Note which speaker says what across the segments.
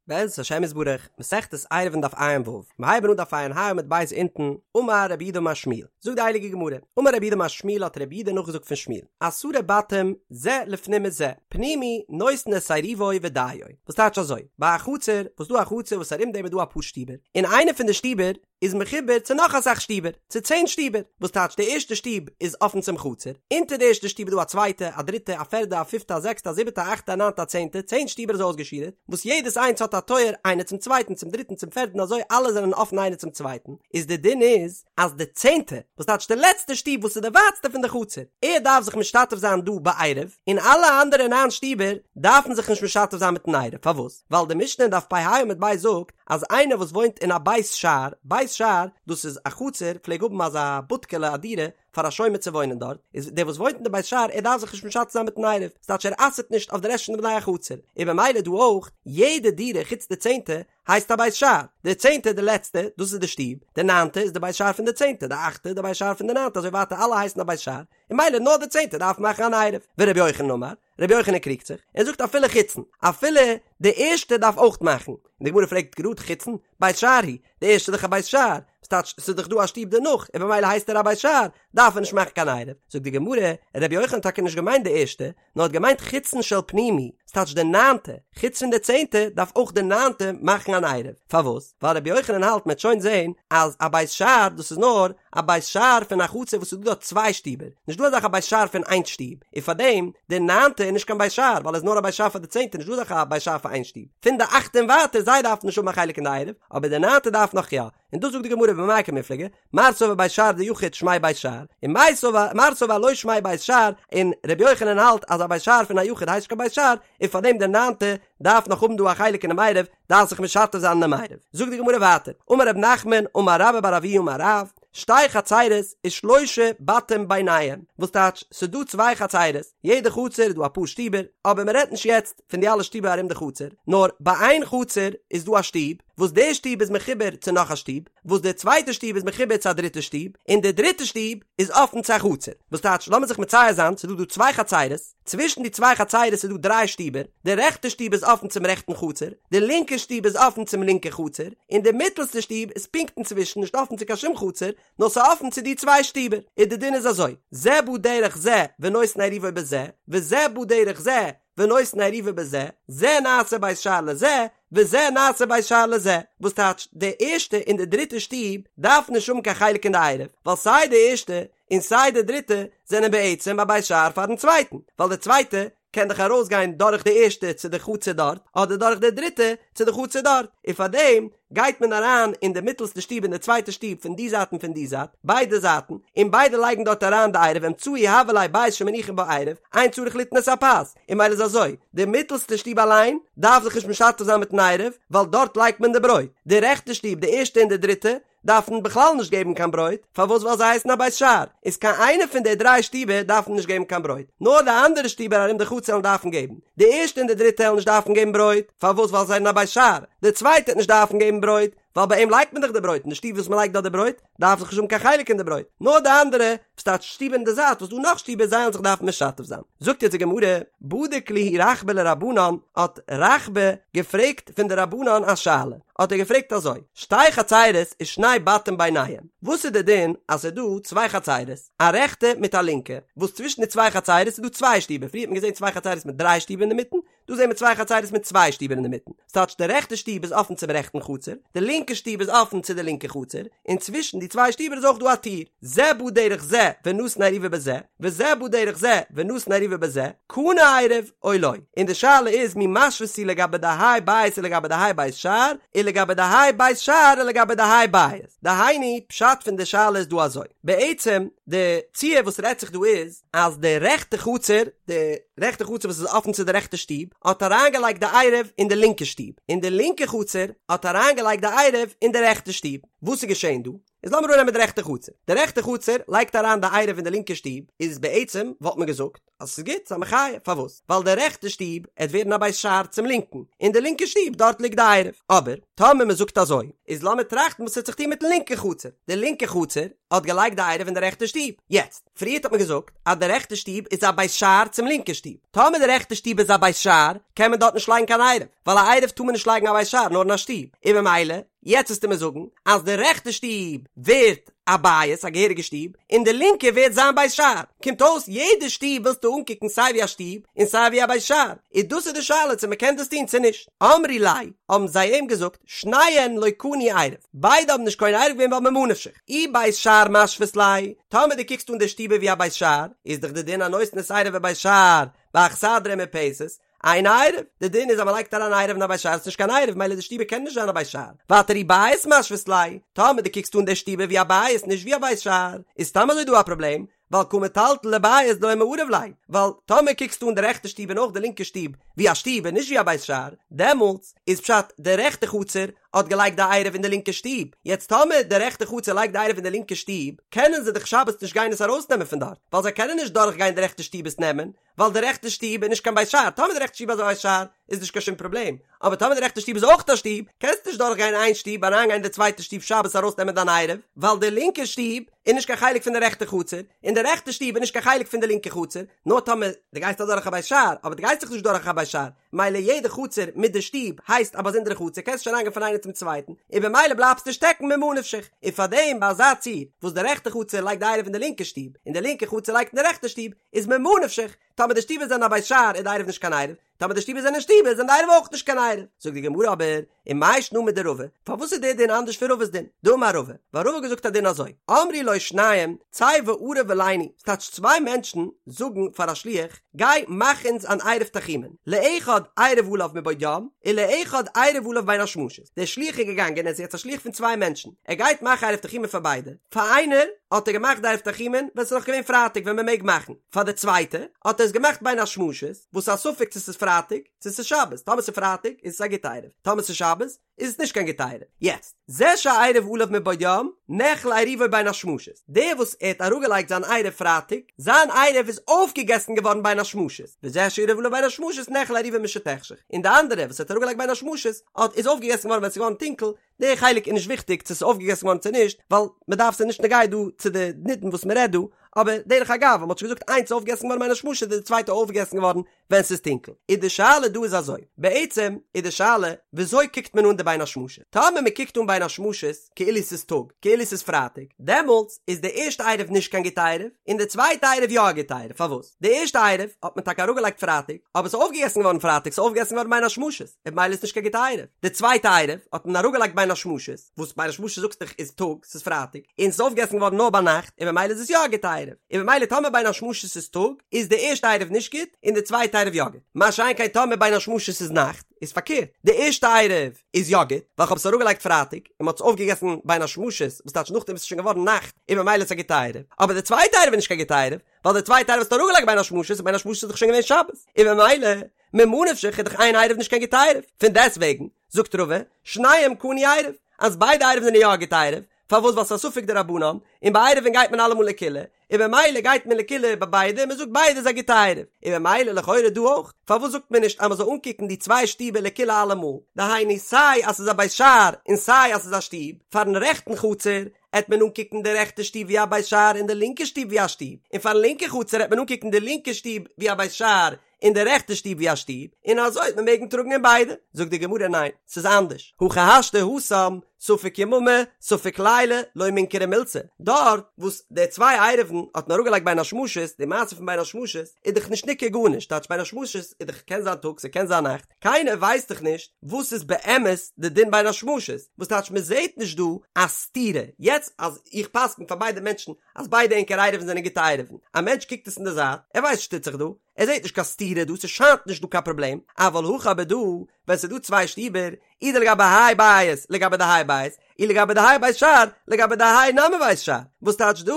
Speaker 1: בעזרת השם יתברך, מסכת עירובין דף ע"ו, מיר הייבן אן דף ע"ה עמוד ב' אונטן, אמר רב יהודה אמר שמואל, זאגט די הייליגע גמרא, אמר רב יהודה אמר שמואל האט רב יהודה נאכגעזאגט פון שמואל, עשרה בתים זה לפנים מזה, פנימי נותן את עירובו ודיו, וואס טייטש אזוי, ביי א חצר, וואס דא א חצר וואס ארום דעם איז דא אפאר שטיבער, און איינע פון די שטיבער איז מחובר צו נאך אסאך שטיבער, צו צען שטיבער, וואס טייטש די ערשטע שטוב איז אפן צום חצר, אונטער די ערשטע שטוב איז דא א צווייטע, א דריטע, א פערדע, א פיפטע, א זעקסטע, א זיבעטע, א אכטע, א ניינטע, א צענטע, צען שטיבער אזוי אויסגעשורה'ט, וואס יעדעס איינס האט א טויער איינער צום צווייטן, צום דריטן, צום פערדן, אזוי אלע זענען אפן איינער צום צווייטן, איז די דין איז, אז די צענטע, וואס טייטש די לעצטע שטוב וואס איז די ווייטסטע פון די חצר, ער דארף זיך משתתף זיין דא בעירוב, און אלע אנדערע ניין שטיבער דארפן זיך נישט משתתף זיין מיטן עירוב, פארוואס? ווייל די משנה אין דף פ"ה עמוד ב' זאגט, אז איינער וואס וואוינט אין א בית שער, בית שער, דאס איז א חצר, פלעג האבן אזא בודקעלע א דירה פאר א שומר צו וואוינען דארט, איז דער וואס וואוינט אין די בית שער ער דארף זיך נישט משתתף זיין מיטן עירוב, ס'טייטש ער אסר'ט נישט אויף די רעשט פון די בני החצר, און במילא דא אויך, יעדע דירה חוץ די צענטע הייסט א בית שער, די צענטע די לעצטע, דאס איז די שטוב, די ניינטע איז די בית שער פון די צענטע, די אכטע די בית שער פון די ניינטע, אזוי ווייטער אלע הייסן א בית שער, און במילא נאר די צענטע דארף מאכן אן עירוב, ורבי יוחנן אמר, רבי יוחנן קריגט זיך, ער זאגט אפילו חיצון, אפילו די ערשטע דארף אויך מאכן, און די גמרא פרעגט גראד חיצון, בית שער הוא, די ערשטע איז דאך א בית שער, וואס טייטש ס'איז דאך דא א שטוב דערנאך, און במילא הייסט ער א בית שער, דארף ער נישט מאכן קיין עירוב, זאגט די גמרא, רבי יוחנן האט טאקע נישט געמיינט די ערשטע, נאר האט געמיינט חיצון של פנימי, ס'טייטש די ניינטע, חוץ פון די צענטע דארף אויך די ניינטע מאכן אן עירוב, פארוואס? ווייל רבי יוחנן האלט מ'עט שוין זעהן אז א בית שער דאס איז נאר א בית שער פון א חצר וואס איז דא דארט צוויי שטיבער, נישט דא אזאך א בית שער פון איין שטוב, און פארדעם די ניינטע איז נישט קיין בית שער ווייל עס איז נאר א בית שער פאר די צענטע נישט דא אזאך א בית שער פאר איין שטוב, פון די אכטע און ווייטער זיי דארפן נישט האבן א חלק אין די עירוב, אבער די ניינטע דארף נאך יא, און דאס זאגט די גמרא במאי קמיפלגי, מר סבר בית שער דיחיד שמיה בית שער, און מר סבר מר סבר לא שמיה בית שער, און ר' יוחנן האלט אז א בית שער פון א יחיד הייסט נישט קיין בית שער, און פארדעם די ניינטע דארף נאך האבן דא א חלק אינעם עירוב, דארף זיך משתף זיין אינעם עירוב. זאגט די גמרא ווייטער, אמר רב נחמן אמר רבה בר אבוה אמר רב, שתי חצרות ושלושה בתים ביניהם, וואס טייטש ס'דא צוויי חצרות, יעדע חצר איז דא אפאר שטיבער, אבער מ'רעדט נישט יעצט פון די אלע שטיבער ארום די חצר, נאר ביי איין חצר איז דא א שטוב, וואס די שטוב איז מחובר צו נאך א שטוב, וואס די צווייטע שטוב איז מחובר צו א דריטע שטוב, און די דריטע שטוב איז אפן צו א חצר. וואס טייטש, לאמיר זיך מצייר זיין, ס'איז דא דא צוויי חצרות, צווישן די צוויי חצרות איז דא דריי שטיבער, די רעכטע שטוב איז אפן צום רעכטן חצר, די לינקע שטוב איז אפן צום לינקע חצר, און די מיטלסטע שטוב איז פונקט אינצווישן נישט אפן צו קיין שום חצר, נאר ס'איז אפן צו די צוויי שטיבער. און די דין איז אזוי, זה בא דרך זה ונותן עירובו בזה, וזה בא דרך זה ונותן עירובו בזה, זה נעשה בית שער לזה, וזה נעשה בית שער לזה, וואס טייטש, די ערשטע און די דריטע שטוב דארפן נישט האבן קיין חלק אין די עירוב, ווייל סיי די ערשטע און סיי די דריטע זענען בעצם א בית שער פארן צווייטן, ווייל די צווייטע קען דאך ארויסגיין דורך די ערשטע צו די חצר דארט, אדער דורך די דריטע צו די חצר דארט, און פארדעם גייט מען אריין אין די מיטלסטע שטוב אין די צווייטע שטוב פון די זייט און פון די זייט, ביידע זייטן, און ביידע לייגן דארט אריין די עירוב אמצעי הוה ליה בית שמניחין בו עירוב, אין צריך ליתן את הפת, און ממילא איז אזוי, די מיטלסטע שטוב אליין דארף זיך נישט משתתף זיין מיטן עירוב, ווייל דארט לייגט מען די ברויט, די רעכטע שטוב די ערשטע און די דריטע, דארפן בכלל נישט געבן קיין ברויט, פארוואס ווייל זיי הייסן א בית שער, איז קיין איינע פון די דריי שטיבער דארפן נישט געבן קיין ברויט, נאר די אנדערע שטיבער ארום די חצר וועלן דארפן געבן, די ערשטע און די דריטע וועלן נישט דארפן געבן ברויט, פארוואס ווייל זיי זענען א בית שער, די צווייטע וועט נישט דארפן געבן ברויט, ווייל ביי אים לייגט מען דאך די ברויט, אין די שטוב וואס מען לייגט דארט די ברויט, דארף זיך נישט האבן קיין חלק אין די ברויט, נאר די אנדערע, וואס טייטש שטיבער אין די זייט וואס דא נאך שטיבער זיי וועלן זיך דארפן משתף זיין. זאגט יעצט די גמרא, בדיק להו רחבה לרבנן, האט רחבה געפרעגט פון די רבנן א שאלה, האט ער געפרעגט אזוי, שתי חצירות ושני בתים ביניהם, וואס איז די דין אז ס'איז דא צוויי חצירות, א רעכטע מיט א לינקע, וואס צווישן די צוויי חצירות איז דא צוויי שטיבער, פריער האט מען געזען צוויי חצירות מיט דריי שטיבער אינדערמיטן, דא זעהן מיר צוויי חצירות מיט צוויי שטיבער אינדערמיטן, ס'טייטש די רעכטע שטוב איז אפן צום רעכטן חצר, די לינקע שטוב איז אפן צו די לינקע חצר, און צווישן די צוויי שטיבער איז אויך דא א טיר, זה בא דרך זה ונתן עירובו בזה, וזה בא דרך זה ונתן עירובו בזה, קנה עירוב או לא, און די שאלה איז מי משוית היא לגבי דהאי בית ולגבי דהאי בית שער, ולגבי דהאי בית שער ולגבי דהאי בית, דהיינו פשט פון די שאלה איז דא אזוי, בעצם די ציור וואס רעדט זיך דא איז, אז די רעכטע חצר, די רעכטע חצר וואס איז אפן צו די רעכטע שטוב, האט אריינגעלייגט די עירוב אין די לינקע שטוב, און די לינקע חצר האט אריינגעלייגט די עירוב אין די רעכטע שטוב. וואס איז געשען דא? איז לאמיר אננעמען די רעכטע חצר. די רעכטע חצר לייגט אריין די עירוב אין די לינקע שטוב, איז בעצם וואלט מען געזאגט אז ס'איז גוט, ס'איז א מחיה, פארוואס? ווייל די רעכטע שטוב עט ווערן א בית שער צום לינקן, און די לינקע שטוב דארט ליגט די עירוב. אבער טאמער מען זאגט אזוי, איז לאמיר טראכטן וואס עט זיך טון מיטן לינקן חצר. די לינקע חצר האט געלייגט די עירוב אין די רעכטע שטוב. יעצט, פריערט האט מען געזאגט אז די רעכטע שטוב איז א בית שער צום לינקע שטוב. טאמער די רעכטע שטוב איז א בית שער, קען מען דארט נישט לייגן קיין עירוב, ווייל א עירוב טאר מען נישט לייגן א בית שער נאר אין א שטוב, און במילא, יעצט וועסטו מיר זאגן אז די רעכטע שטוב ווערט א בית, א געהעריגע שטוב, און די לינקע ווערט זיין בית שער. קומט אויס יעדע שטוב ווילסטו אנקוקן סיי ווי א שטוב און סיי ווי א בית שער. איז דאס איז די שאלה צו מ'קען דאס טון צו נישט. אמרי ליה, האבן זיי אים געזאגט, שניהן לא קנו עירוב. ביידע האבן נישט קונה עירוב געווען ווייל ממה נפשך. אי בית שער משווית ליה, טאמער דו קוקסט אן די שטיבער ווי א בית שער, איז דאך די דין הנותן את עירובו בבית שער באכסדרה ומרפסת, אינו עירוב, די דין איז אז מען לייגט אריין עירוב אין א בית שער איז נישט קיין עירוב מילא די שטיבער קען נישט זיין א בית שער, ווייטער אי בית משווית ליה, טאמער דו קוקסט אן די שטיבער ווי א בית נישט ווי א בית שער, איז סתם אזוי דא א פראבלעם, ווייל קא מטלטל לבית דלא מעריב ליה, ווייל טאמער קוקסטו אן די רעכטע שטוב און אויך די לינקע שטוב ווי א שטוב און נישט ווי א בית שער, דעמאלטס איז פשט די רעכטע חצר האט געלייגט די עירוב אין די לינקע שטוב, יעצט טאמער די רעכטע חצר לייגט די עירוב אין די לינקע שטוב, קענען זיי דאך שבת נישט גיין עס ארויסנעמען פון דארט, ווייל זיי קענען נישט דורכגיין די רעכטע שטוב עס נעמען, ווייל די רעכטע שטוב איז נישט קיין בית שער, טאמער די רעכטע שטוב איז א בית שער איז נישט קיין שום פראבלעם, אבער טאמער די רעכטע שטוב איז אויך א שטוב, קענסטו נישט דורך גיין איין שטוב אריין גיין אין די צווייטע שטוב שבת ארויס נעמען דיין עירוב, ווייל די לינקע שטוב איז נישט קיין חלק פון די רעכטע חצר, און די רעכטע שטוב איז נישט קיין חלק פון די לינקע חצר, נאר טאמער דו גייסט אדורך א בית שער, אבער דו גייסט דאך נישט דורך א בית שער, מילא יעדע חצר מיט די שטוב הייסט א באזונדערע חצר קענסט נישט אריינגיין פון איינער צום צווייטן, און במילא בלייבסטו שטעקן ממה נפשך, און פארדעם ביי אזא ציור וואס די רעכטע חצר לייגט די עירוב אין די לינקע שטוב, און די לינקע חצר לייגט אין די רעכטע שטוב, איז ממה נפשך, טאמער די שטיבער זענען א בית שער איז די עירוב נישט קיין עירוב, טאמער די שטיבער זענען שטיבער זענען די עירוב אויך נישט קיין עירוב. זאגט די גמרא אבער, ומאי שנא מדרבא, פארוואס איז דער דין אנדערש פון רבא'ס דין? דאמר רבא, ווייל רבא האט געזאגט א דין אזוי, אמרו לו שניים, צא וערב עלינו, ס'טייטש צוויי מענטשן זאגן פאר א שליח, גיי מאך אונז אן עירוב תחומין, לאחד עירב עליו מבעוד יום, ולאחד עירב עליו בין השמשות, דער שליח איז געגאנגען, ער איז יעצט א שליח פון צוויי מענטשן, ער גייט מאכן עירוב תחומין פאר ביידע, פאר איינער האט ער געמאכט די עירוב תחומין ווען ס'איז נאך געווען פרייטאג ווען מ'מעג מאכן, פאר די צווייטע האט ער עס געמאכט בין השמשות, וואס איז א ספק צו ס'איז פרייטאג צו ס'איז שבת, טאמער ס'איז פרייטאג איז עס א גוטע עירוב, טאמער ס'איז שבת איז עס נישט קיין גוטע עירוב. יעצט, זה שעירב עליו מבעוד יום, נאכל עירובו בין השמשות, דער וואס ער האט אראפגעלייגט זיין עירוב פרייטאג, זיין עירוב איז אויפגעגעסן געווארן בין השמשות, וזה שעירב עליו בין השמשות נאכל עירובו משתחשך, און די אנדערע וואס ער האט אראפגעלייגט בין השמשות, האט איז אויפגעגעסן געווארן ווען ס'איז געווארן טונקל, די חלק איז נישט וויכטיג צו ס'איז אויפגעגעסן געווארן צו נישט, ווייל מ'דארף ס'איז נישט נוגע דא צו די נידון וואס מ'רעדט דא, אבער דרך אגב אז מ'האט שוין געזאגט איינס איז אויפגעגעסן געווארן בין השמשות איז די צווייטע אויפגעגעסן געווארן ווען ס'איז טונקל. איז די שאלה דא איז אזוי, בעצם איז די שאלה וויאזוי קוקט מען אן די בין השמשות? טאמער מ'קוקט אן בין השמשות כאילו ס'איז טאג, כאילו ס'איז פרייטאג, דעמאלטס איז די ערשטע עירוב נישט קיין גוטע עירוב, און די צווייטע עירוב יא א גוטע עירוב, פארוואס? די ערשטע עירוב האט מען טאקע אראפגעלייגט פרייטאג, אבער ס'איז אויפגעגעסן געווארן פרייטאג, ס'איז אויפגעגעסן געווארן בין השמשות, און במילא איז נישט קיין גוטע עירוב. די צווייטע עירוב האט מען אראפגעלייגט בין השמשות, וואס בין השמשות זאגסט דאך איז טאג, ס'איז פרייטאג, און ס'איז אויפגעגעסן געווארן נאר ביינאכט, און במילא איז עס יא א גוטע עירוב. און במילא טאמער בין השמשות איז טאג, איז די ערשטע עירוב נישט גוט, און די צווייטע עירוב יא גוט. מה שאין כן טאמער בין השמשות איז נאכט, איז פארקערט, די ערשטע עירוב איז יא גוט, ווייל כ'האב עס אראפגעלייגט פרייטאג, און מ'האט עס אויפגעגעסן בין השמשות, וואס טייטש נאכדעם איז עס שוין געווארן נאכט, און במילא איז עס א גוטע עירוב. אבער די צווייטע עירוב איז נישט קיין גוטע עירוב, ווייל די צווייטע עירוב האסטו אראפגעלייגט בין השמשות, און בין השמשות איז דאך שוין געווען שבת, און במילא, ממה נפשך איז דאך איין עירוב נישט קיין גוטע עירוב, פון דעסטוועגן, זאגט רבא, שניהם קנו עירוב, אז ביידע עירובין זענען יא א גוטע עירוב, פארוואס ווייל ס'איז א ספק דרבנן, און ביי עירובין גייט מען אלעמאל לקולא, און במילא גייט מען לקולא ביי ביידע און מ'זאגט ביידע איז א גוטע עירוב, און במילא לכאורה דא אויך, פארוואס זאגט מען נישט אז מ'זאל אנקוקן די צוויי שטיבער לקולא אלעמאל, דהיינו סיי אז ס'איז א בית שער און סיי אז ס'איז א שטוב, פארן רעכטן חצר עט מען אנקוקן די רעכטע שטוב ווי א בית שער און די לינקע שטוב ווי א שטוב, און פארן לינקע חצר עט מען אנקוקן די לינקע שטוב ווי א בית שער און די רעכטע שטוב ווי א שטוב, און אזוי וועט מען מעגן טראגן אין ביידע. זאגט די גמרא ניין, ס'איז אנדערש, הכי השתא התם, ספק יממא, ספק ליליא, לא מינכרא מילתא, דארט וואס די צוויי עירובין האט מען אראפגעלייגט בין השמשות, די מעשה פון בין השמשות איז דאך נישט ניכר גארנישט, טייטש בין השמשות איז דאך קען זיין טאג ס'קען זיין נאכט, קיינער ווייסט דאך נישט וואס איז באמת די דין בין השמשות, וואס טייטש מ'זעהט נישט דא א סתירה, יעצט אז איך פסק'ן פאר ביידע מענטשן אז ביידע ענקער עירובין זענען גוטע עירובין, א מענטש קוקט עס אין די זייט, ער ווייסט נישט וואס טוט זיך דא, ער זעט נישט קיין סתירה דא, ס'שיינט נישט דא קיין פראבלעם, אבל הכא אבער דא, ווען ס'איז דא צוויי שטיבער, אי דלגבי האי בית לגבי דהאי בית, אי לגבי דהאי בית שער לגבי דהאי נמי בית שער, וואס טייטש דא,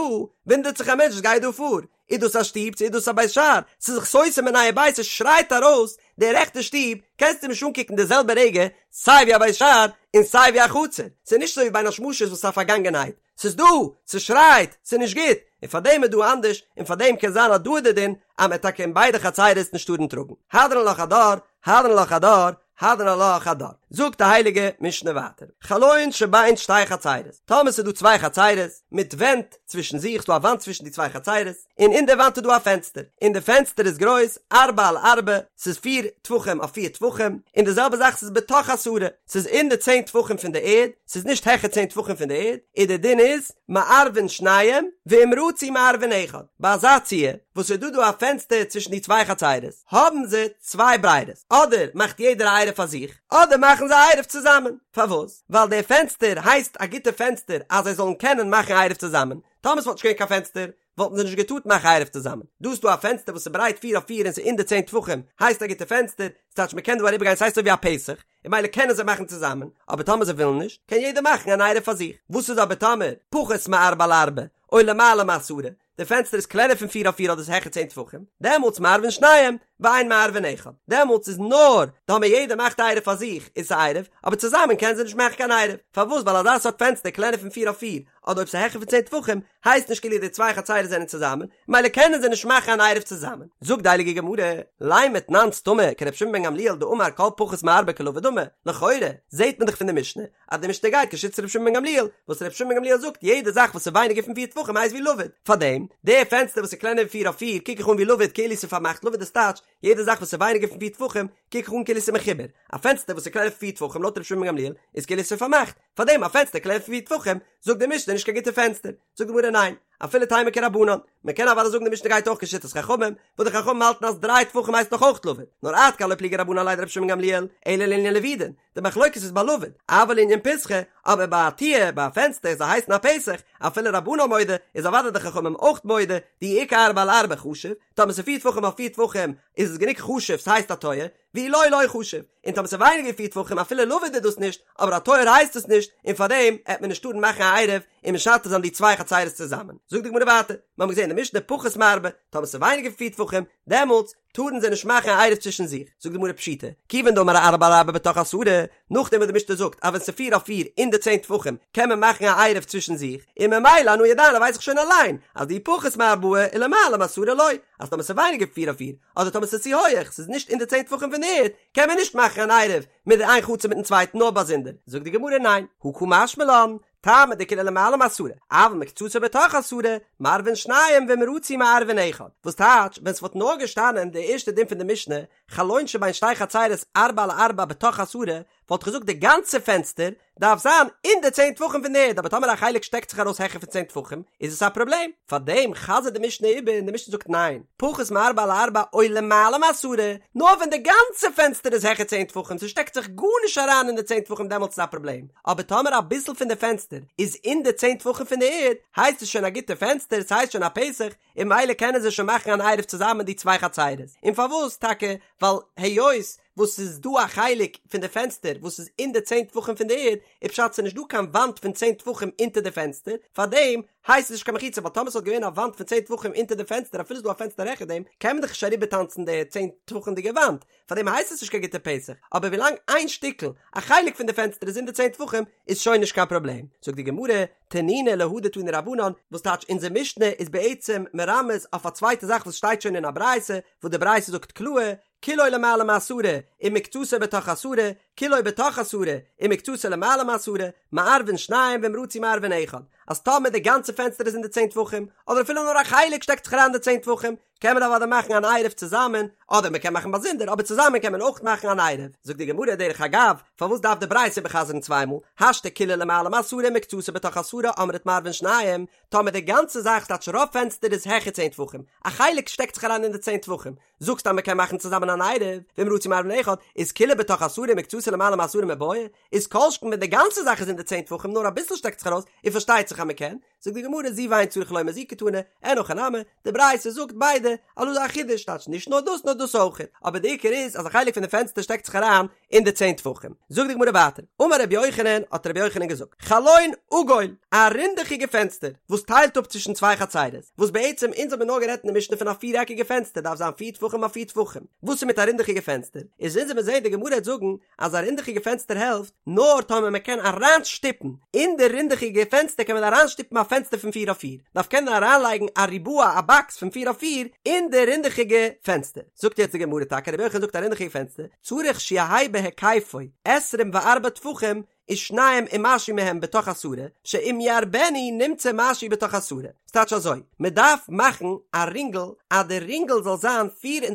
Speaker 1: וואונדערט זיך א מענטש וואס גייט דא פאר, איז דאס א שטוב צו איז דאס א בית שער, ס'איז זיך סותר מיניה וביה, ס'שרייט ארויס, די רעכטע שטוב, קענסטו נישט אנקוקן די זעלבע רגע. סיי ווי א בית שער און סיי ווי א חצר, ס'איז נישט אזוי ווי בין השמשות וואס איז א פארגאנגענהייט, ס'איז דא, ס'שרייט, ס'איז נישט גוט, און פארדעם איז דא אנדערש, און פארדעם קען זיין אז דא איז די דין אז מ'עט טאקע אין ביידע חצרות נישט טארן טראגן. הדרן עלך הדר, הדרן עלך הדר, הדרן עלך הדר. זאגט די הייליגע משנה ווייטער, חלון שבין שתי חצרות, טאמער ס'איז דא צוויי חצרות, מיט ווענט צווישן זיך, ס'דא א וואנט צווישן די צוויי חצרות, און אין די וואנט איז דא א פענסטער, און די פענסטער איז גרויס ארבע על ארבע, ס'איז פיר טפחים אויף פיר טפחים, און די זעלבע זאך ס'איז בתוך עשרה, ס'איז אין די צען טפחים פון די ערד, ס'איז נישט העכער צען טפחים פון די ערד, און די דין איז, מערבין שניים, ואם רצו מערבין אחד, ביי אזא ציור, וואס ס'איז דא דא א פענסטער צווישן די צוויי חצרות, האבן זיי צוויי ברירות, אדער מאכט יעדער א עירוב פאר זיך, אדער מאכן זיי א עירוב צוזאמען, פארוואס? ווייל די פענסטער הייסט א גוטע פענסטער אז זיי זאלן קענען מאכן עירוב צוזאמען, טאמער ס'וואלט נישט געווען קיין פענסטער, וואלטן זיי נישט געטארט מאכן עירוב צוזאמען. דא איז דא א פענסטער וואס איז ברייט פיר אויף פיר און ס'איז אין די צען טפחים, הייסט א גוטע פענסטער, ס'טייטש מ'קען דא אריבערגיין ס'הייסט אזוי ווי א פתח, און ממילא קענען זיי מאכן צוזאמען, אבער טאמער זיי ווילן נישט, קען יעדער מאכן אן עירוב פאר זיך. וואס איז אבער טאמער פחות מארבע על ארבע, או למעלה מעשרה, די פענסטער איז קלענער פון פיר אויף פיר אדער ס'איז העכער צען טפחים, דעמאלטס מערבין שניים, ואין מערבין אחד. דעמאלטס איז נאר טאמער יעדער מאכט א עירוב פאר זיך איז ס'עירוב, אבער צוזאמען קענען זיי נישט מאכן קיין עירוב. פארוואס? ווייל אזא סארט פענסטער קלענער פון פיר אויף פיר, אדער אויב ס'איז העכער פון צען טפחים, הייסט נישט כאילו די צוויי חצירות זענען צוזאמען, ממילא קענען זיי נישט מאכן אן עירוב צוזאמען. זאגט די הייליגע גמרא, לימא תנן סתמא כרבי שמעון בן גמליאל דאמר כל פחות מארבע כלבוד דמי, לכאורה זעט מען דאך פון די משנה אז די משנה גייט כשיטת רבי שמעון בן גמליאל, וואס רבי שמעון בן גמליאל זאגט יעדע זאך וואס איז ווייניגער פון פיר טפחים הייסט ווי לבוד, פארדעם די פענסטער וואס איז קלענער ווי פיר אויף פיר קוק איך אן ווי לבוד כאילו ס'איז פארמאכט לבוד איז טייטש יעדע זאך וואס איז ווייניגער פון פיר טפחים קוק איך אן כאילו ס'איז מחובר, א פענסטער וואס איז קלענער פון פיר טפחים לויט רבי שמעון בן גמליאל איז כאילו ס'איז פארמאכט, פארדעם א פענסטער קלענער פון פיר טפחים זאגט די משנה נישט קיין גוטע פענסטער, זאגט די גמרא ניין, אפילו תימא כרבנן, מען קען אוודאי זאגן די משנה גייט אויך כשיטת חכמים, וואס די חכמים האלטן אז דריי טפחים הייסט נאך אויך לבוד, נאר עד כאן לא פליגי רבנן עליה דרבי שמעון בן גמליאל, אלא לענין לבודין, די מחלוקת איז ביי לבוד, אבל לענין פתחא, אבער ביי א טיר, ביי א פענסטער, זאל הייסן א פתח, אפילו רבנן מודה, איז אוודאי די חכמים אויך מודה, דאי איכא ארבעה על ארבעה חשיב, טאמער ס'איז פיר טפחים אויף פיר טפחים, איז עס גענוג חשוב ס'הייסט א טויער, ואי לא לא חשיב, און טאמער ס'איז ווייניגער ווי פיר טפחים אפילו לבוד איז דאס נישט, אבער א טויער הייסט עס נישט, און פארדעם העט מען נישט טארן מאכן א עירוב און משתף זיין די צוויי חצירות צוזאמען. זאגט די גמרא ווייטער, מיר האבן געזען אין די משנה פחות מארבעה, טאמער ס'איז ווייניגער ווי פיר טפחים, דעמאלטס טארן זיי נישט מאכן א עירוב צווישן זיך. זאגט די גמרא פשיטא, כיוון דאמר ארבעה על ארבעה בתוך עשרה, נאכדעם וואס די משנה זאגט אז ווען ס'איז פיר אויף פיר אין די צען טפחים קען מען מאכן א עירוב צווישן זיך, און ממילא אנא ידענא ווייס איך שוין אליין אז דאי פחות מארבעה ולמעלה מעשרה לא, אז טאמער ס'איז ווייניגער ווי פיר אויף פיר, אדער טאמער ס'איז צו הויעך, ס'איז נישט אין די צען טפחים פון די ערד, קען מען נישט מאכן אן עירוב מיט די איין חצר מיטן צווייטן נאר באזונדער. זאגט די גמרא ניין, הא קא משמע לן, טעמא דכולו למעלה מעשרה, אבל מקצתו בתוך עשרה, מערבין שניים ואם רצו מערבין אחד. וואס טייטש, ווען ס'וואלט נאר געשטאנען די ערשטע דין פון די משנה, חלון שבין שתי חצרות ארבעה על ארבעה בתוך עשרה, וואלט איך געזאגט די גאנצע פענסטער דארף זיין אין די צען טפחים פון די ערד אבער טאמער א חלק שטעקט זיך ארויס העכער פון צען טפחים איז עס א פראבלעם, פארדעם חזר'ט די משנה איבער און די משנה זאגט ניין, פחות מארבעה על ארבעה או למעלה מעשרה, נאר ווען די גאנצע פענסטער איז העכער צען טפחים ס'שטעקט זיך גארנישט אריין אין די צען טפחים דעמאלטס איז א פראבלעם, אבער טאמער אביסל פון די פענסטער איז אין די צען טפחים פון די ערד הייסט עס שוין א גוטע פענסטער ס'הייסט שוין א פתח און ממילא קענען זיי שוין מאכן אן עירוב צוזאמען די צוויי חצרות, און פארוואס טאקע ווייל היות וואס ס'איז דא א חלק פון די פענסטער וואס איז אין די צען טפחים פון די ערד, איז פשט ס'איז נישט דא קיין וואנט פון צען טפחים אונטער די פענסטער, פארדעם הייסט עס נישט קיין מחיצה, ווייל טאמער ס'וואלט געווען א וואנט פון צען טפחים אונטער די פענסטער אפילו ס'איז דא א פענסטער העכער דעם, קען מען דאך נישט אריבערטאנצן די צען טפחים'דיגע וואנט, פארדעם הייסט עס נישט קיין גוטע פתח, אבער ווילאנג איין שטיקל, א חלק פון די פענסטער איז אין די צען טפחים, איז שוין נישט קיין פראבלעם. זאגט די גמרא, תנינא להא דתנו רבנן, וואס טייטש אונזער משנה איז בעצם מרמז אויף א צווייטע זאך וואס שטייט שוין אין א ברייתא, וואס די ברייתא זאגט קלאר, כולו למעלה מעשרה, ומקצתו בתוך עשרה, כולו בתוך עשרה, ומקצתו למעלה מעשרה, מערבין שניים ואם רצו מערבין אחד. אז טאמער די גאנצע פענסטער איז אין די צען טפחים, אדער אפילו נאר א חלק שטעקט זיך אריין אין די צען טפחים, קען מען אוודאי מאכן אן עירוב צוזאמען, אדער מען קען מאכן באזונדער, אבער צוזאמען קען מען אויך מאכן אן עירוב. זאגט די גמרא דרך אגב, פארוואס דארף די ברייתא איבערחזר'ן צוויי מאל, השתא כולו למעלה מעשרה ומקצתו בתוך עשרה אמרת מערבין שניים, טאמער די גאנצע זאך ס'טייטש רוב פענסטער איז העכער צען טפחים, א חלק שטעקט זיך אריין אין די צען טפחים, זאגסט אז מען קען מאכן צוזאמען אן עירוב, ואם רצו מערבין אחד, איז כולו בתוך עשרה ומקצתו למעלה מעשרה מיבעיא, איז כל שכן ווען די גאנצע זאך איז אין די צען טפחים נאר אביסל שטעקט זיך ארויס, און פארשטייט זיך אז מען קען. זאגט די גמרא זו ואין צריך לומר זו קתני, אין הכי נמי, די ברייתא זאגט ביידע, אז דא איז א חידוש, טייטש נישט נאר דאס נאר דאס אויכעט, אבער די עיקר איז אז א חלק פון די פענסטער שטעקט זיך אריין אין די צען טפחים. זאגט די גמרא ווייטער, אמר רבי יוחנן, האט רבי יוחנן געזאגט, חלון עגול, א רינדעכיגע פענסטער, וואס טיילט אפ צווישן צוויי חצרות, וואס בעצם אונז האבן נאר גערעדט אין די משנה פון א פיר עקיגע פענסטער דארף זיין פיר טפחים אויף פיר טפחים, וואס איז מיט א רינדעכיגע פענסטער? איז אונז וועלן זעהן די גמרא וועט זאגן אז א רינדעכיגע פענסטער העלפט נאר טאמער מען קען אריינשטופן אין די רינדעכיגע פענסטער קען מען אריינשטופן א פענסטער פון פיר אויף פיר, דארף קענען אריינלייגן א ריבוע א באקס פון פיר אויף פיר אין די רינדעכיגע פענסטער. זאגט יעצט די גמרא טאקע רבי יוחנן זאגט א רינדעכיגע פענסטער צריך שיהא בהיקפו עשרים וארבעה טפחים ושניים ומשהו מהם בתוך עשרה, שאם ירבנו נמצא משהו בתוך עשרה. ס'טייטש אזוי, מ'דארף מאכן א רינגל אז די רינגל זאל זיין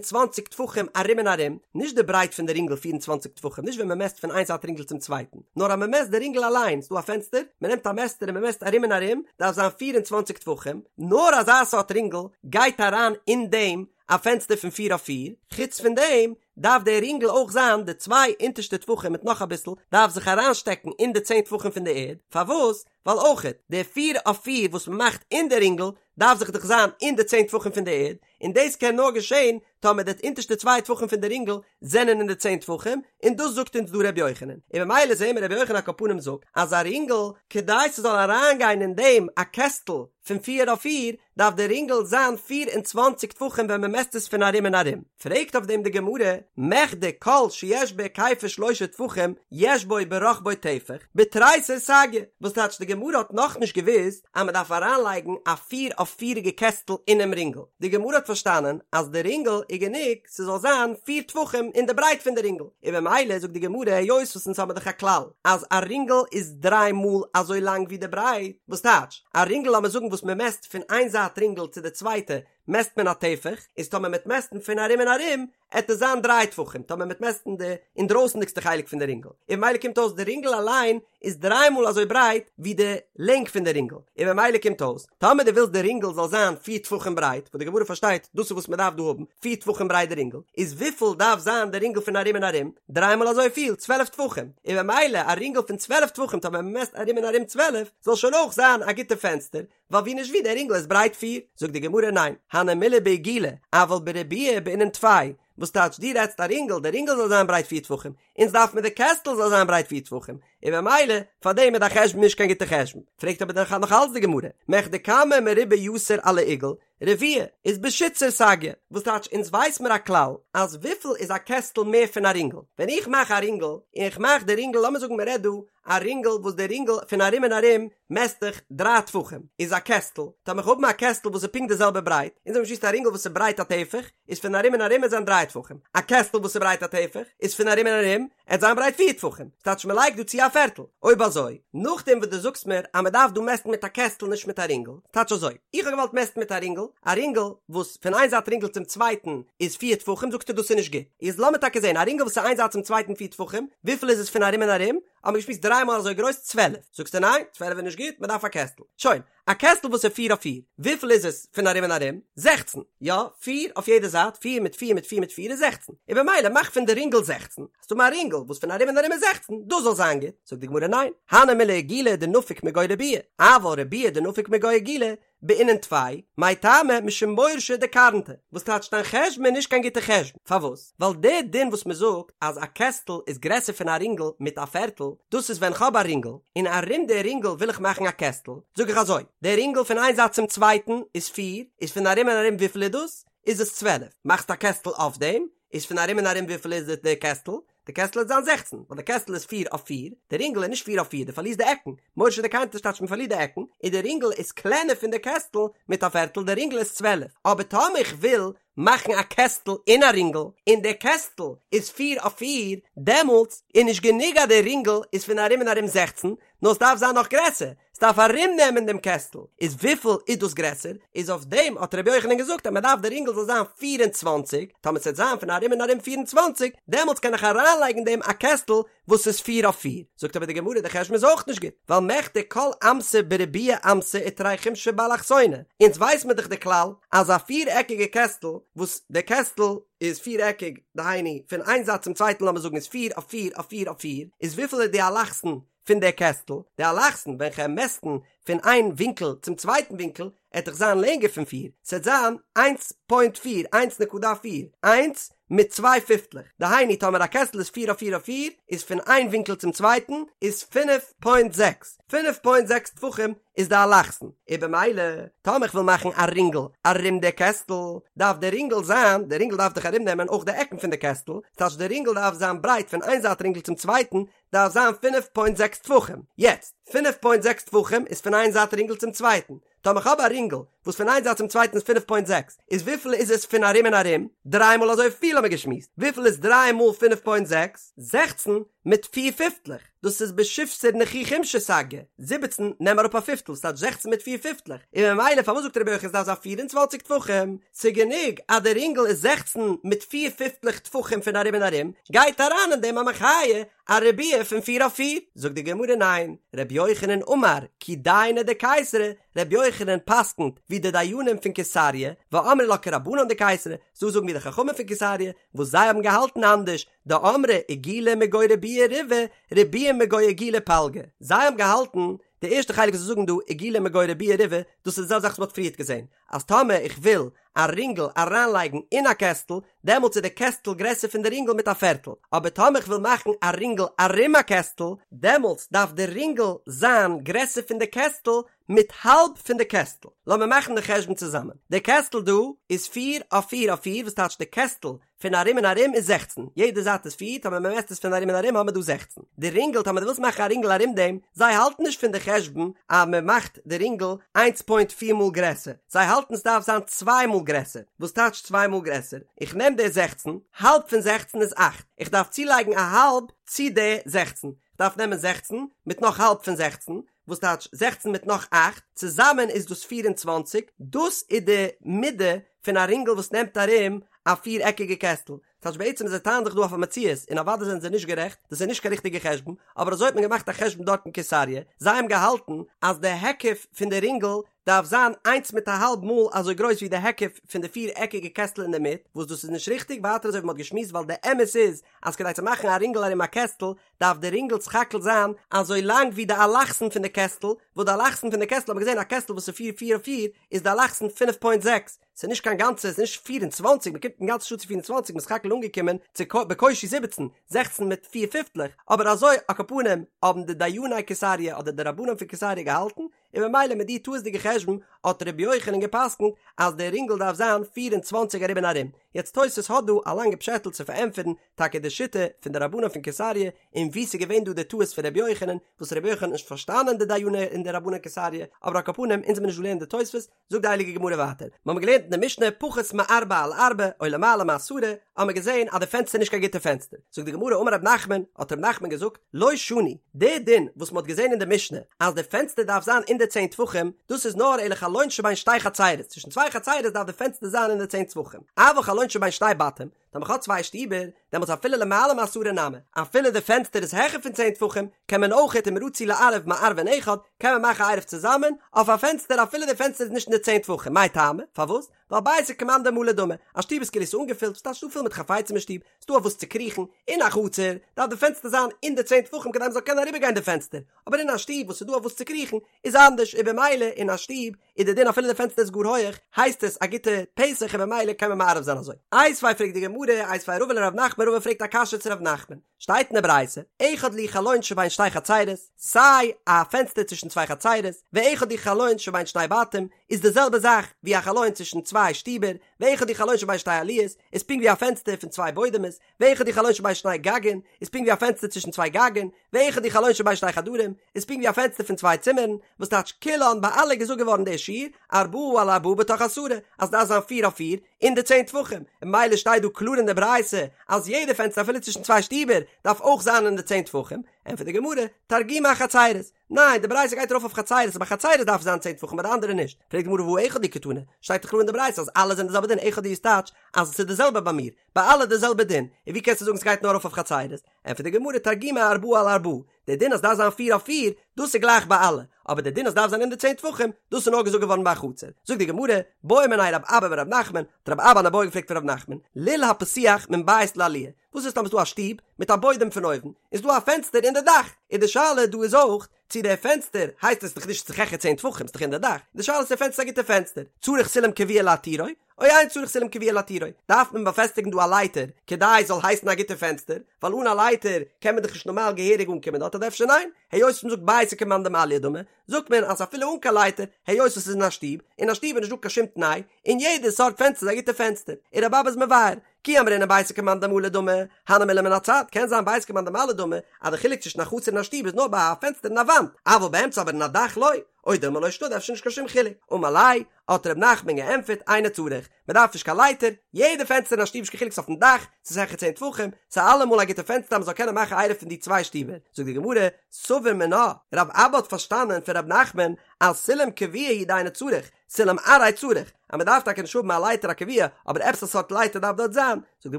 Speaker 1: 24 טפחים ארום און ארום, נישט די ברייט פון די רינגל 24 טפחים, נישט ווען מ'מעסט פון איין זייט רינגל צום צווייטן, נאר אז מ'מעסט די רינגל אליין, ס'דא א פענסטער, מ'נעמט א מעסטער און מ'מעסט ארום און ארום, דארף זיין 24 טפחים, נאר אזא סארט רינגל גייט אריין אין דעם א פענסטער פון פיר אויף פיר, חוץ פון דעם דארף דער רינגל אויך זיין די צוויי אונטערשטע טפחים מיט נאך אביסל דארף זיך אריינשטעקן אין די צען טפחים פון די ערד, פארוואס? ווייל אויכעט די פיר אויף פיר וואס מען מאכט אין די רינגל דארף זיך דאך זיין אין די צען טפחים פון די ערד, און דאס קען נאר געשען טאמער די אונטערשטע צוויי טפחים פון די רינגל זענען אין די צען טפחים, און דאס זאגט אונז דא ר' יוחנן, און ממילא זעהן מיר ר' יוחנן על כל פנים זאגט אז א רינגל כדי ס'זאל אריינגיין אין דעם א קעסטל פון פיר אויף פיר דארף די רינגל זיין 24 טפחים ווען מען מעסט עס פון ארום און ארום. פרעגט אויף דעם די גמרא, מכדי כל שיש בהיקפו שלושה טפחים יש בו ברחבו טפח, בתריסר סגיא, וואס טייטש די גמרא האט נאכנישט געוואוסט אז מען דארף אריינלייגן א פיר אויף פיריגע קעסטל אינעם רינגל, די גמרא האט פארשטאנען אז די רינגל איז גענוג ס'זאל זיין פיר טפחים אין די ברייט פון די רינגל, און במילא זאגט די גמרא היות וואס אונז האבן דאך א כלל אז א רינגל איז דריי מאל אזוי לאנג ווי די ברייט, וואס טייטש א רינגל לאמיר זאגן וואס מען מעסט פון איין זייט רינגל צו די צווייטע מעסט מען א טפח, איז טאמער מ'עט מעסטן פון ארום און ארום עט עס זיין דריי טפחים, טאמער מ'עט מעסטן די אינדרויסנדיגסטע חלק פון די רינגל, און במילא קומט אויס די רינגל אליין איז דריי מאל אזוי ברייט ווי די לענג פון די רינגל, און במילא קומט אויס טאמער דו ווילסט די רינגל זאל זיין פיר טפחים ברייט, וואס די גמרא פארשטייט דאס איז וואס מען דארף דא האבן, פיר טפחים ברייט די רינגל, איז וויפיל דארף זיין די רינגל פון ארום און ארום? דריי מאל אזוי פיל, צוועלף טפחים, און במילא א רינגל פון צוועלף טפחים טאמער מען מעסט ארום און ארום צוועלף, זאל שוין אויך זיין א גוטע פענסטער, ווייל ווי נישט ווי דער רינגל איז ברייט פיר, זאגט די גמרא ניין, הני מילי בעיגולא, אבל בריבועא בעינן טפי, וואס טייטש דו רעדסט א רינגל, די רינגל זאל זיין ברייט פיר טפחים, אונז דארף מיר די קעסטל זאל זיין ברייט פיר טפחים, און במילא פאר דעם איז דיין חשבון נישט קיין גוטע חשבון, פרעגט אבער דאך נאך אלץ די גמרא, מכדי כמה מרובע יתר על העיגול, רביע, איז בשיתסר סגיא, וואס טייטש אונז ווייס מיר א כלל אז וויפיל איז א קעסטל מער פון א רינגל, ווען איך מאך א רינגל און איך מאך די רינגל לאמיר זאגן מען רעדט דא א רינגל וואס די רינגל פון ארום און ארום מעסט זיך דריי טפחים איז א קעסטל, טאמער איך האב א קעסטל וואס איז פונקט די זעלבע ברייט, אונז האבן געשמועסט א רינגל וואס איז ברייט א טפח איז פון ארום און ארום עט זיין דריי טפחים, א קעסטל וואס איז ברייט א טפח איז פון ארום און ארום עט זיין ברייט פיר טפחים, ס'טייטש מען לייגט דא צו א פערטל, אויב אזוי נאכדעם וואס דו זאגסט מיר אז מען דארף דא מעסטן מיט א קעסטל נישט מיט א רינגל, ס'טייטש אזוי, איך האב געוואלט מעסטן מיט א רינגל, א רינגל וואס פון איין זייט רינגל צום צווייטן איז פיר טפחים זאגסטו דאס איז נישט גוט, איז לאמיר טאקע זען א רינגל וואס איז איין זייט צום צווייטן פיר טפחים, וויפיל איז עס פון ארום און ארום? האבן מיר געשמועסט דריי מאל אזוי גרויס 12, זאגסטו ניין 12 איז נישט גוט מען דארף א קעסטל, שוין, א קעסטל וואס איז פיר אויף פיר, וויפיל איז עס פון ארום און ארום? 16, יא, פיר אויף יעדע זייט, פיר מיט פיר מיט פיר מיט פיר איז 16, און במילא מאך פון די רינגל 16, האסטו מיר א רינגל וואס פון ארום און ארום איז 16, דאס זאל זיין גוט, זאגט די גמרא ניין, הני מילי עיגולא דנפיק מגו ריבועא, אבל ריבועא דנפיק מגו עיגולא, בעינן טפי, מאי טעמא משום מורשא דקרנתא, וואס טייטש דיין חשבון איז נישט קיין גוטע חשבון, פארוואס? ווייל די דין וואס מען זאגט אז א קעסטל איז גרעסער פון א רינגל מיט א פערטל, דאס איז ווען כ'האב א רינגל, און ארום די רינגל וויל איך מאכן א קעסטל, זאג איך אזוי, די רינגל פון איין זייט צום צווייטן איז פיר, איז פון ארום און ארום וויפיל איז דאס? איז עס 12, מאכסט א קעסטל אויף דעם, איז פון ארום און ארום וויפיל איז די קעסטל? די קעסטל וועט זיין זעכצן, ווייל די קעסטל איז פיר אויף פיר, די רינגל איז נישט פיר אויף פיר, דו פארלירסט די עקן, מורשא דקרנתא טייטש מען פארלירט די עקן, און די רינגל איז קלענער פון די קעסטל מיט א פערטל, די רינגל איז צוועלף, אבער טאמער איך וויל מאכן א קעסטל אין א רינגל, און די קעסטל איז פיר אויף פיר, דעמאלטס איז נישט גענוג אז די רינגל איז פון ארום און ארום זעכצן, נאר עס דארף זיין נאך גרעסער, עס דארף ארום נעמען דעם קעסטל, איז וויפיל איז דאס גרעסער? איז אויף דעם האט רבי יוחנן געזאגט אז מען דארף די רינגל זאל זיין 24, טאמער ס'וועט זיין פון ארום און ארום 24, דעמאלטס קען איך אריינלייגן אין דעם א קעסטל וואס איז פיר אויף פיר. זאגט אבער די גמרא די חשבון איז אויך נישט גוט, ווייל מכדי כל אמתא בריבועא אמתא ותרי חומשי באלכסונא, אונז ווייס מיר דאך די כלל אז א פיר עקיגע קעסטל וואס די קעסטל איז פיר עקיג, דהיינו פון איין זייט צום צווייטן לאמיר זאגן איז פיר אויף פיר אויף פיר אויף פיר, איז וויפיל איז די אלכסון? פון די קעסטל, די אלכסון ווען כ'וועל מעסטן פון איין ווינקל צום צווייטן ווינקל, עט דאך זיין לענגער פון פיר, ס'עט זיין איינס פוינט פיר, איינס נקודה פיר, איינס מיט צוויי פיפטלעך, דהיינו טאמער א קעסטל איז פיר אויף פיר אויף פיר, איז פון איין ווינקל צום צווייטן איז פינף פוינט זעקס, פינף פוינט זעקס טפחים איז די אלכסון, און במילא טאמער כ'וויל מאכן א רינגל ארום די קעסטל, דארף די רינגל זיין, די רינגל דארף דאך ארום נעמען אויך די עקן פון די קעסטל, ס'טייטש די רינגל דארף זיין ברייט פון איין זייט רינגל צום צווייטן, דארף זיין פינף פוינט זעקס טפחים, יעצט, פינף פוינט זעקס טפחים איז פון איין זייט רינגל צום צווייטן, טאמער כ'האב א רינגל וואס פון איין זייט צום צווייטן איז פינף פוינט זעקס, איז וויפיל איז עס פון ארום און ארום? דריי מאל אזוי פיל האמיר געשמועסט, וויפיל איז דריי מאל פינף פוינט זעקס? 16 מיט פיר פיפטלעך, דאס איז בשיבסר נכי חומשא סגי, 17 נעם אראפ א פיפטל, ס'טייטש 16 מיט פיר פיפטלעך, און ממילא פארוואס זאגט רבי יוחנן ס'דארף זיין 24 טפחים? ס'גענוג אז די רינגל איז 16 מיט פיר פיפטלעך טפחים פון ארום און ארום, גייט אריין אין דעם א מחיה א ריבוע פון פיר אויף פיר? זאגט די גמרא ניין, רבי יוחנן אמר כי דייני דקיסרי, רבי יוחנן פסק'נט ווי די דיינים פון קיסריה, ואמרי לה כרבנן דקיסרי, ס'דא זאגן ווי די חכמים פון קיסריה, וואס זיי האבן געהאלטן אנדערש, דאמרי עיגולא מגו ריבועא ריבעא, ריבועא מגו עיגולא פלגא, זיי האבן געהאלטן, די ערשטע חלק וואס זיי זאגן דא עיגולא מגו ריבועא ריבעא, דאס איז די זעלבע זאך וואס מ'האט פריערט געזען, אז טאמער איך וויל א רינגל אריינלייגן אין א קעסטל, דעמאלטס איז די קעסטל גרעסער פון די רינגל מיט א פערטל, אבער טאמער איך וויל מאכן א רינגל ארום א קעסטל, דעמאלטס דארף די רינגל זיין גרעסער פון די קעסטל מיט האלב פון די קעסטל. לאמיר מאכן די חשבון צוזאמען. די קעסטל דא איז פיר אויף פיר אויף פיר, וואס טייטש די קעסטל פון ארום און ארום איז 16, יעדע זייט איז פיר, טאמער מען מעסט עס פון ארום און ארום האמער דא 16. די רינגל, טאמער דו ווילסט מאכן א רינגל ארום דעם, זיי האלטן נישט פון די חשבון אז מען מאכט די רינגל איינס פוינט פיר מאל גרעסער, זיי האלטן ס'דארף זיין צוויי מאל גרעסער, וואס טייטש צוויי מאל גרעסער? איך נעם די 16, האלב פון 16 איז אכט, איך דארף צולייגן א האלב צו די 16, איך דארף נעמען 16 מיט נאך האלב פון 16, וואס טייטש 16 מיט נאך אכט, צוזאמען איז דאס 24, דאס איז די מידה פון א רינגל וואס נעמט ארום א פיר עקיגע קעסטל, טייטש בעצם זיי טענה'ן זיך דא אויף א מציאות און אוודאי זענען זיי נישט גערעכט, דאס איז נישט קיין ריכטיגע חשבון, אבער אזוי האט מען געמאכט א חשבון דארט אין קיסריה, זיי האבן געהאלטן אז די היקף פון די רינגל דארף זיין איינס מיט א האלב מאל אזוי גרויס ווי די היקף פון די פיר עקיגע קעסטל אינדערמיט, וואס דאס איז נישט ריכטיג, ווייטער אזוי ווי מען האט געשמועסט ווייל די אמת איז אז כדי צו מאכן א רינגל ארום א קעסטל דארף די רינגל סך הכל זיין אזוי לאנג ווי די אלכסון פון די קעסטל, וואס די אלכסון פון די קעסטל האט מען געזען א קעסטל וואס איז פיר פיר אויף פיר איז די אלכסון פינף פוינט זעקס, ס'איז נישט קיין גאנצע, ס'איז נישט 24, מ'קומט אינגאנצן נישט אן צו 24, מ'איז סך הכל אנגעקומען צו בקושי 17, 16 מיט פיר פיפטלעך, אבער אזוי על כל פנים האבן די דייני קיסריה אדער די רבנים פון קיסריה געהאלטן, און ממילא מיט די טעות'דיגע חשבון האט ר' יוחנן גע'פסק'נט אז די רינגל דארף זיין 24 ארום און ארום. יעצט תוס' האט דא א לאנגע פשעטל צו פארענטפערן טאקע די שיטה פון די רבנים פון קיסריה און וואו ס'איז געווען דא די טעות פון ר' יוחנן, וואס ר' יוחנן האט נישט פארשטאנען די דייני און די רבני קיסריה, אבער על כל פנים אונז וועלן נישט דא לערנען די תוספות, זאגט די הייליגע גמרא ווייטער, מיר האבן געלערנט אין די משנה פחות מארבע על ארבע או למעלה מעשרה, האבן מיר געזען אז די פענסטער איז נישט קיין גוטע פענסטער, זאגט די גמרא אמר רב נחמן, האט רב נחמן געזאגט, לא שנו, די דין וואס מען האט געזען אין די משנה אז די פענסטער דארף זיין אין די צען טפחים, דאס איז נאר אלא חלון שבין שתי חצרות, צווישן צוויי חצרות דארף די פענסטער זיין אין די צען טפחים, אבל חלון שבין שתי בתים, טאמער כ'האב צוויי שטיבער, דעמאלטס אפילו למעלה מעשרה נמי, אפילו די פענסטער איז העכער פון צען טפחים, קען מען אויכעט אם רצו לערב מערבין אחד, קען מען מאכן א עירוב צוזאמען, אויף א פענסטער אפילו די פענסטער איז נישט אין די צען טפחים, מאי טעמא? פארוואס? ווייל ביתא כמאן דמלי דמי, א שטוב איז כאילו ס'איז אנגעפילט, ס'טייטש ס'דא פול מיט חפצים אין שטוב, ס'דא אויף וואס צו קריכן, אין א חצר, דארף די פענסטער זיין אין די צען טפחים כדי מ'זאל קענען אריבערגיין די פענסטער, אבער אין א שטוב וואס ס'איז דא אויף וואס צו קריכן, איז אנדערש, און במילא אין א שטוב איז די דין אפילו די פענסטער איז גאר הויעך הייסט עס א גוטע פתח און במילא קען מען מערב זיין אזוי. איתיביה פרעגט די גמרא, איתיביה רבא לרב נחמן רבא פרעגט א קשיא צו רב נחמן, שטייט אין די ברייתא, אחד לי חלון שבין שתי חצרות, סיי א פענסטער צווישן צוויי חצרות, ואחד הוא חלון שבין שני בתים, איז די זעלבע זאך ווי א חלון צווישן צוויי שטיבער, ואחד הוא חלון שבין שתי עליות, איז פונקט ווי א פענסטער פון צוויי בוידעמעס, ואחד הוא חלון שבין שני גגין, איז פונקט ווי א פענסטער צווישן צוויי גגין, ואחד הוא חלון שבין שני חדרים, איז פונקט ווי א פענסטער פון צוויי צימערן, וואס טייטש כולן ביי אלע געזאגט געווארן דער שיעור, ארבעה על ארבעה בתוך עשרה, אז דארף זיין פיר אויף פיר, אין די צען טפחים, און ממילא שטייט דא קלאר אין די ברייתא, אז יעדע פענסטער אפילו צווישן צוויי שטיבער, דארף אויך זיין אין די צען טפחים, ענטפערט די גמרא, תרגומא אחצרות, ניין, די ברייתא גייט ארויף אויף חצרות, אז ביי חצרות דארף זיין צען טפחים ביי די אנדערע נישט. פרעגט די גמרא והא אחד הוא קתני, שטייט דאך קלאר אין די ברייתא אז אלע זענען די זעלבע דין, אחד הוא איז טייטש אז עס איז די זעלבע ביי מיר, ביי אלע די זעלבע דין, און ווי קענסטו זאגן ס'גייט נאר ארויף אויף חצרות? ענטפערט די גמרא תרגומא ארבעה על ארבעה, די דין אז דארף זיין פיר אויף פיר, דאס איז גלייך ביי אלע, אבער די דין אז דארף זיין אין די צען טפחים, דאס איז נאר געזאגט געווארן ביי א חצר. זאגט די גמרא, בעא מיניה רב אבא מרב נחמן, האט רב אבא אן איבעיא געפרעגט פון רב נחמן, לול הפתוח מן בית לעליה. וואס איז טאמער ס'דא א שטוב מיט א בוידעם פון אויבן, איז דא א פענסטער אין די דאך, איז די שאלה דא איז אויך צו דער פענסטער הייסט עס דאך נישט ס'איז דאך העכער צען טפחים ס'איז דאך אין די דאך, די שאלה איז צו דער פענסטער איז א גוטע פענסטער, צריך סולם קבוע להתירו, או אין צריך סולם קבוע להתירו, דארף מען באפעסטיגן דא א לייטער כדי עס זאל הייסן א גוטע פענסטער, ווייל אן א לייטער קען מען דאך נישט נארמאל געהעריג אנקומען דארט אדער אפשר ניין, היות מ'זאגט ביתא כמאן דמעליא דמי, זאגט מען אז אפילו אן קיין לייטער, היות עס איז אין א שטוב, אין א שטוב איז נישט דא קיין שום תנאי, און יעדע סארט פענסטער איז א גוטע פענסטער, און רבי אבא איז מבאר, כי אמרינן ביתא כמאן דמלא דמי, הני מילי מן הצד, קען זיין ביתא כמאן דמעליא דמי, אז די חילוק צווישן א חצר און א שטוב איז נאר ביי א פענסטער אין א וואנט, אבל באמצע אבער אין א דאך לא, או דילמא לא שנא אפשר נישט קיין שום חילוק, אמר ליה, האט ר' נחמן געענטפערט אינו צריך, מען דארף נישט קיין לייטער, יעדע פענסטער אין א שטוב נישט קיין חילוק ס'איז אויפן דאך, ס'איז העכער צען טפחים, ס'איז אלעמאל א גוטע פענסטער אז מ'זאל קענען מאכן עירוב פון די צוויי שטיבער, זאגט די גמרא, סבור מינה, רב אבא האט פארשטאנען פון ר' נחמן אז סולם קבוע הוא דאינו צריך, סולם עראי צריך, אז מען דארף טאקע נישט האבן א לייטער א קבוע, אבער עפעס א סארט לייטער דארף דארט זיין, זאגט די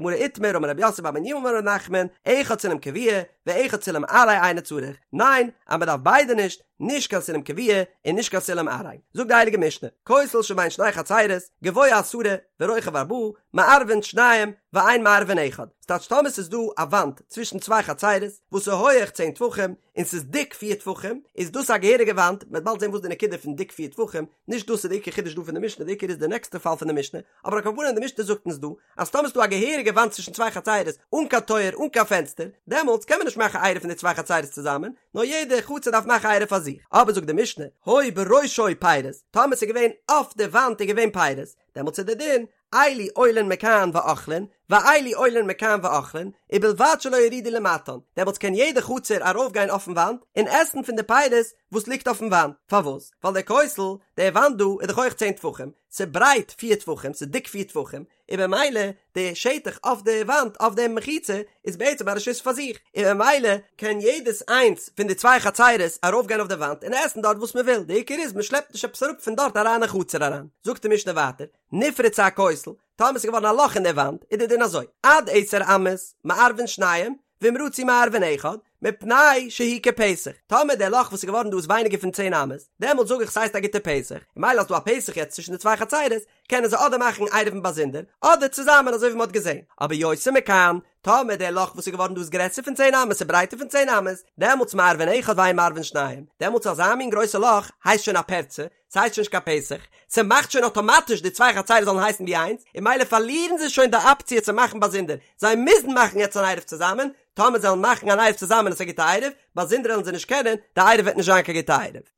Speaker 1: גמרא איתמר אמר רב יוסף בר מניומי אמר ר' נחמן, אחד סולם קבוע ואחד סולם עראי אינו צריך, ניין, אז מען דארף ביידע נישט, נישט קיין סולם קבוע און נישט קיין סולם עראי. זאגט די הייליגע משנה, כותל שבין שני חצירות, גבוה עשרה ורוחב ארבעה, מערבין שניים ואין מערבין אחד. ס'טייטש טאמער ס'איז דא א וואנט צווישן צוויי חצירות וואס איז הויעך צען טפחים און ס'איז דיק פיר טפחים, איז דאס א געהעריגע וואנט, מ'וועט באלד זען וואס די נקודה פון דיק פיר טפחים, נישט דאס איז די עיקר חידוש דא פון די משנה, די עיקר איז די נעקסטע פאל פון די משנה, אבער על כל פנים די משנה זאגט אונז דא אז טאמער ס'איז דא א געהעריגע וואנט צווישן צוויי חצירות אן קיין טויער אן קיין פענסטער, דעמאלטס קען מען נישט מאכן עירוב פון די צוויי חצירות צוזאמען, נאר יעדע חצר דארף מאכן עירוב פאר זיך. אבער זאגט די משנה, היו בראשו פירות, טאמער ס'איז געווען אויף די וואנט איז געווען פירות, דעמאלטס איז די דין, אלו עולין מכאן ואוכלין, ואלו עולין מכאן ואוכלין, ובלבד שלא יורידו למטן, דעמאלטס קען יעדע חצר ארויפגיין אויפן וואנט און עסן פון די פירות וואס ליגט אויפן וואנט, פארוואס? ווייל דער כותל, די וואנט דא איז דאך הויך צען טפחים, ס'ברייט פיר טפחים, ס'איז דיק פיר טפחים, און במילא די שטח אויף די וואנט אויף די מחיצה איז בעצם א רשות פאר זיך, און במילא קען יעדעס איינס פון די צוויי חצרות ארויפגיין אויף די וואנט און עסן דארט וואס מ'וויל, די עיקר איז מ'שלעפט נישט עפעס אראפ פון דארט אריין אין חצר אריין. זאגט די משנה ווייטער, נפרצה הכותל, טאמער ס'איז געווארן א לאך אין די וואנט, איז די דין אזוי, עד עשר אמות, מערבין שניים, ואם רצו מערבין אחד, מפני שהוא כפתח, טאמער דער לאך וואס איז געווארן דא איז ווייניגער פון צען אמות, דעמאלט זאג איך ס'הייסט א גוטע פתח, און מילא אז ס'דא א פתח יעצט צווישן די צוויי חצרות, קענען זיי אדער מאכן עירובין באזונדער, אדער צוזאמען אזוי ווי מ'האט געזען. אבער יותר מכאן, טאמער דער לאך וואס איז געווארן דא איז גרעסער פון צען אמות און ברייטער פון צען אמות, דעמאלטס מערבין אחד ואין מערבין שניים, דעמאלטס אזא מין גרויסע לאך הייסט שוין א פרצה, ס'הייסט שוין נישט קיין פתח, ס'מאכט שוין אטאמאטיש די צוויי חצרות זאלן הייסן ווי איינס, און מילא פארלירן זיי שוין די אפציע צו מאכן באזונדער, זיי מוזן מאכן יעצט אן עירוב צוזאמען, טאמער זיי וועלן מאכן אן עירוב צוזאמען איז עס א גוטע עירוב, באזונדער וועלן זיי נישט קענען, די עירוב וועט נישט זיין קיין גוטע עירוב.